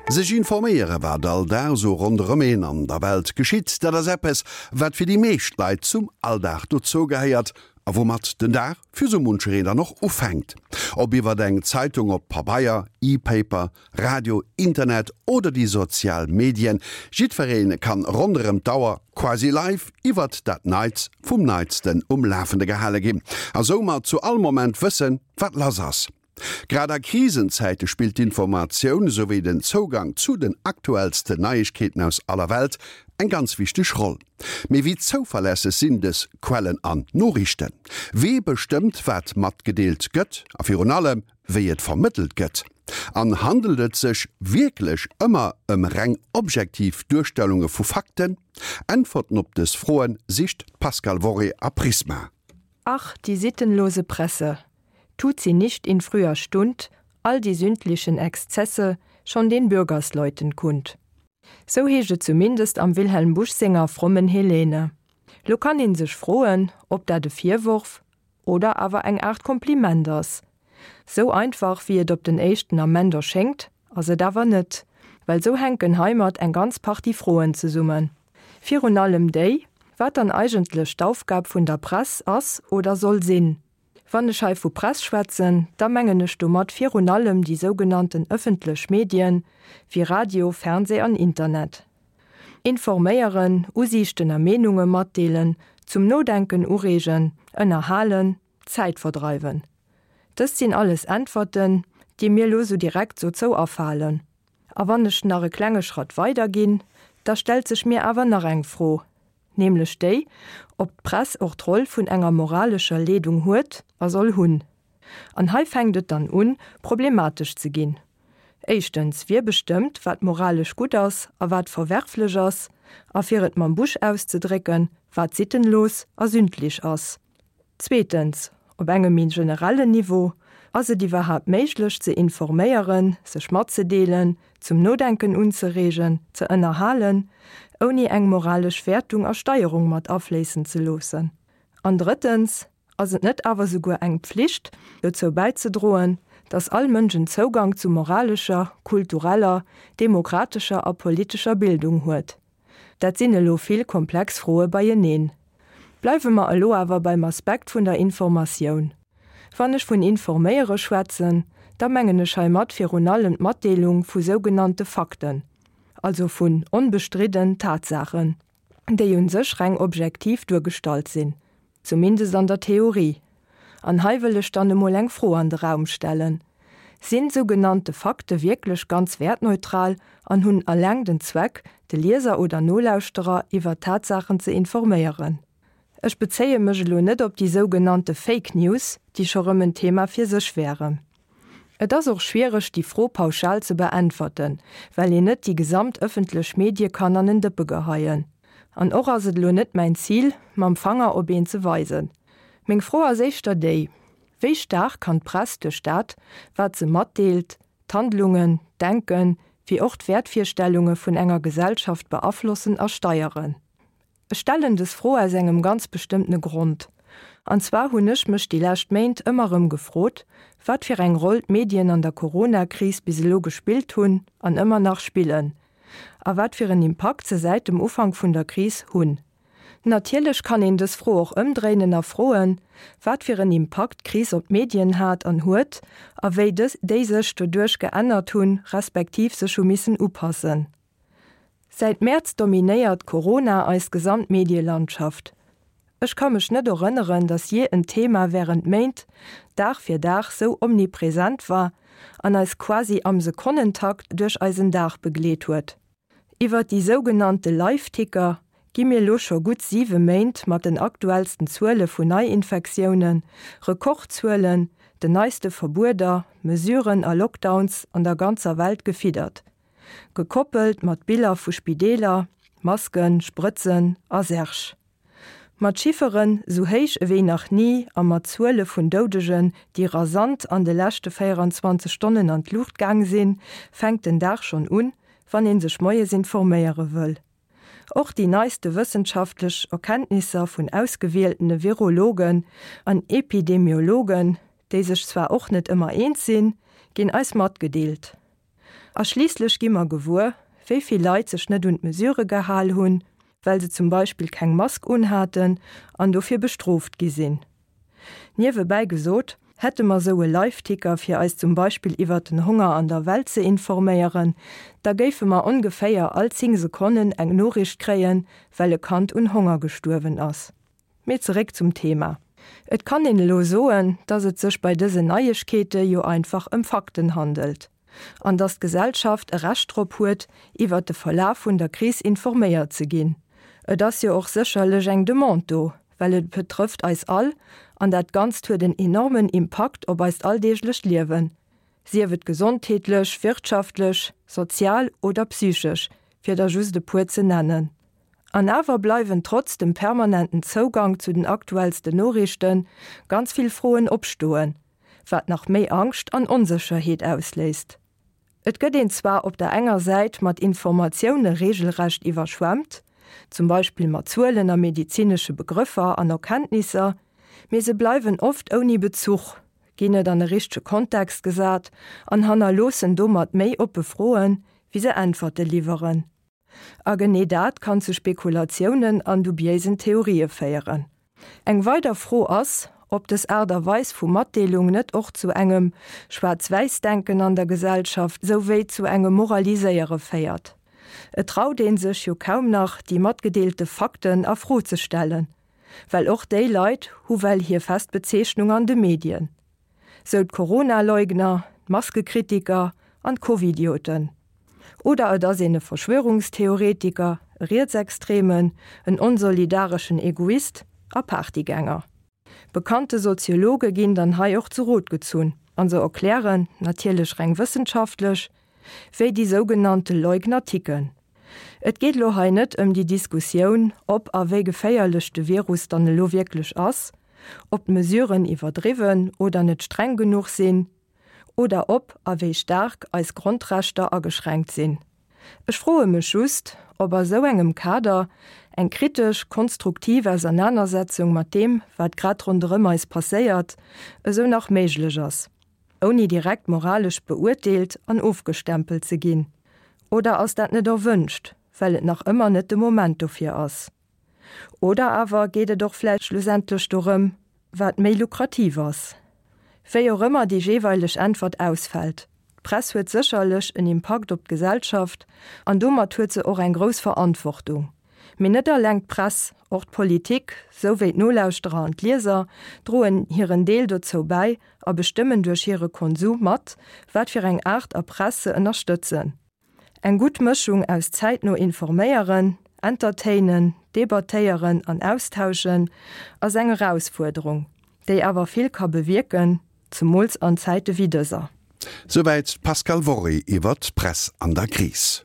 Sech informéiere wat all Dag esou ronderëm een an der Welt geschitt, dat ass eppes, wat fir déi meescht Leit zum Alldag dozou gehéiert a woumat den Dag fir sou munchereen dann och ufänkt. Ob iwwert eng Zeitung op Pabeier, E-Paper, Radio, Internet oder déi sozial Medien, jiddweree kann ronderëm d'Auer quasi live iwwert dat Neits vum Neitsten um Lafende gehale ginn a soumat zu all Moment wëssen, wat lass ass. Grad a Krisenzäite spillt d'Informatioun, souwéi den Zougang zu den aktuellsten Neiegkeeten aus aller Welt eng ganz wichteg Roll. Mee wéi zouverlässeg sinn dës Quellen an Noriichten? Wee bestëmmt, wat matgedeelt gëtt a virun allem, wéi et vermëttelt gëtt? An handelt et sech wierklech ëmmer ëm reng objektiv Duerstellunge vu Fakten? Äntwerten op dës Froe sicht d'Pascale Worré a Prisma. Ach, die sittenlose Presse! Tut sie nicht in früher Stund all die sündlichen Exzesse schon den Bürgersleuten kund? Sou heescht et zumindest am Wilhelm Busch senger Frommen Helene. Lo kann een sech froen, ob dat e Virworf oder awer eng Aart Kompliment ass. Sou einfach wéi et op den éischten Ament erschéngt, ass et awer net, well sou hänken heimat eng ganz Partie Froen zesummen. Virun allem déi, wat dann eigentlech d'Aufgab vun der Press ass oder soll sinn. Wann ech hei vu Press schwätzen, da mengen ech domat virun allem déi sougenannten ëffentlech Medien, wéi Radio, Fernseh an Internet. Informéieren, Usiichten a Meenunge matdeelen, zum Nodenken ureegen, ënnerhalen, Zäit verdreiwen. Dëst sinn alles Äntwerten, déi mir lo sou direkt dozou afalen. A wann ech nach e klenge Schratt weider ginn, da stellt sech mir awer nach eng Fro, nämlech déi, ob d'Press och d'Roll vun enger moralescher Leedung huet a soll hunn. An hei fänkt et dann un, problematesch ze ginn. Éischtens, wie bestëmmt, wat moralesch gutt ass a wat verwerflech ass, a fir et mam Bush auszedrécken, wat sittenlos a sündlich ass? Zweetens, op engem méi generellen Niveau, Ass et iwwerhaapt méiglech ze informéieren, sech matzedeelen, zum Nodenken unzereegen, ze ënnerhalen, ouni eng moralesch Wäertung a Steierung mat afléissen ze loossen? An drëttens, ass et net awer souguer eng Pflicht, dozou bäizedroen, dass all Mënsch en Zougang zu moralescher, kultureller, demokratescher a politescher Bildung huet? Dat sinn elo vill komplex Froe beieneen. Bleiwe mer elo awer beim Aspekt vun der Informatioun. Wann ech vun informéiere schwätzen, da mengen ech heimat virun allem d'Matdeelung vu sougenannte Fakten, also vun onbestridden Tatsaachen, déi u sech reng objektiv duergestallt sinn. Zumindest an der Theorie. An hei wëll ech dann emol eng Fro an de Raum stellen, Sinn sougenannte Fakte wierklech ganz wäertneutral an hunn alleng den Zweck, de Lieser oder Nolauschterer iwwer Tatsaachen ze informéieren? Ech bezéie mech elo net op déi sougenannte Fake News, déi scho rëm en Thema fir sech wären. Et ass och schwiereg, déi Fro pauschal ze beäntwerten, well een net déi gesamt ëffentlech Medie kann an en Dëppe geheien. An och ass et elo net mäin Zil, mam Fanger op een ze weisen. Meng Fro ass éischter déi, Wéi staark kann d'Press duerch dat, wat se matdeelt, d'Handlungen, d'Denken, wéi och d'Wäertvirstellunge vun enger Gesellschaft beaflossen a steieren? Ech stellen des Fro aus engem ganz bestëmmtene Grond. An zwar hunn ech mech déi lescht Méint ëmmer erëm gefrot, wat fir eng Roll d'Medien an der Corona-Kris bis elo gespillt hunn an ëmmer nach spillen. A wat fir en Impakt se säit dem Ufank vun der Kris hunn. Natierlech kann een dës Fro och ëmdréinen a froen, wat fir en Impakt d'Kris op d'Medien hat an huet a wéi déi sech doduerch geännert hunn, respektiv sech hu missen upassen. Säit Mäerz dominéiert Corona eis gesamt Medielandschaft. Ech ka mech net erënneren, datt jee en Thema wärend Méint, Dag fir Dag sou omnipresent war an eis quasi am Sekonnentakt duerch eisen Dag begleet huet. Iwwert déi sougenannte Live-Ticker gi mir lo scho gutt 7 Méint mat den aktuellsten Zuele vun Neiinfektiounen, Rekordzuelen, den neiste Verbueder, Mesuren a Lockdowns an der ganzer Welt gefiddert. Gekoppelt mat Biller vu Spideeler, Masken, Sprëtzen a Särg. Mat Chifferen sou héich ewéi nach ni a mat Zuele vun Doudegen, déi rasant an de leschte 24 Stonnen an d'Luucht gaang sinn, fänkt den Dag schonn un, wann ee sech moies informéiere wëll. Och déi neiste wëssenschaftlech Erkenntnisser vun ausgewieltene Virologen an Epidemiologen, déi sech zwar och net ëmmer eens sinn, ginn eis matgedeelt. A schliisslech gi mer gewuer, wéi vill Leit sech net un d'Mesure gehal hunn, well se zum Beispill keng Mask unhaten an dofir bestrooft gi sinn. Niewebäi gesot, hätte mer sou e Liveticker fir eis zum Beispill iwwert den Honger an der Welt ze informéieren, da géife mer ongeféier all 10 Sekonnen eng Noriicht kréien, well e Kand un Honger gestuerwen ass. Mee zeréck zum Thema. Et kann een elo soen, dass et sech bei dësen Neiegkeete jo einfach ëm Fakten handelt. An dass d'Gesellschaft e Recht drop huet, iwwert de Verlaf vun der Kris informéiert ze ginn. Et ass jo och sécherlech eng Demande do, well et betrëfft eis all an dat Ganzt huet en enormen Impakt op eist alldeeglecht Liewen, sief et gesondheetlech, wirtschaftlech, sozial oder psychesch, fir der just e puer ze nennen. An awer bleiwen trotz dem permanenten Zougang zu den aktuellsten Noriichten ganz vill Froen opstoen, wat nach méi Angscht an Onsécherheet ausléist. Et gëtt een zwar op der enger Säit mat Informatioune reegelrecht iwwerschwemmt, zum Beispill mat Zuelen a medezinesche Begrëffer an Erkenntnisser, mee se bleiwen oft ouni Bezuch, ginn net an e richtege Kontext gesat an hannerloossen domat méi oppe Froen, wéi se Äntwerte liwweren. A genee dat kann zu Spekulatiounen an dubiéisen Theorië féieren. Eng weider Fro ass, ob dës Aart a Weis vu Matdeelung net och zu engem Schwaarz-Wäiss-Denken an der Gesellschaft souwéi zu engem Moraliséiere féiert. Et traut ee sech jo kaum nach, déi matgedeelte Fakten a Fro ze stellen, well och déi Leit hu well hir fest Bezeechnung an de Medien. Sou d'Corona-Leugner, d'Maskekritiker an d'Covidioten. Oder et ass een e Verschwörungstheoretiker, e Rietsextremen, en onsolidareschen Egoist a Partygänger. Bekannte Soziologe ginn dann hei och zu Rot gezunn an se erklären, natierlech reng wëssenschaftlech, wéi déi sougenannte Leugner ticken. Et geet elo hei net ëm déi Diskussioun, ob a wéi geféierlech de Virus dann elo wierklech ass, ob d'Mesuren iwwerdriwwen oder net streng genuch sinn oder ob a wéi staark eis Grondrechter ageschränkt sinn. Ech froe mech just, ob a sou engem Kader eng kritesch, konstruktiv Ausernanersetzung mat deem, wat grad ronderëm eis passéiert, esou nach méiglech ass. Ouni direkt moralesch beurteelt an ofgestempelt ze ginn. Oder ass dat net erwënscht, well et nach ëmmer net de Moment dofir ass? Oder awer geet et och vläicht schlussendlech dorëm, wat méi lukrativ ass? Wéi och ëmmer déi jeeweileg Äntwert ausfält, d'Press huet sécherlech en Impakt op d'Gesellschaft an domat huet se och eng grouss Verantwortung. Mee net alleng d'Press, och d'Politik, sou wéi d'Nolauschterer an d'Lieser droen hiren Deel dozou bäi a bestëmmen duerch hire Konsum mat, wat fir eng Aart a Press se ënnerstëtzen. Eng gutt Mëschung aus zäitno informéieren, entertainen, debattéieren an austauschen ass eng Erausfuerderung, déi awer vill ka bewierken, zemools an Zäite wéi dëser. Souwäit d'Pascale Worré iwwer d'Press an der Kris.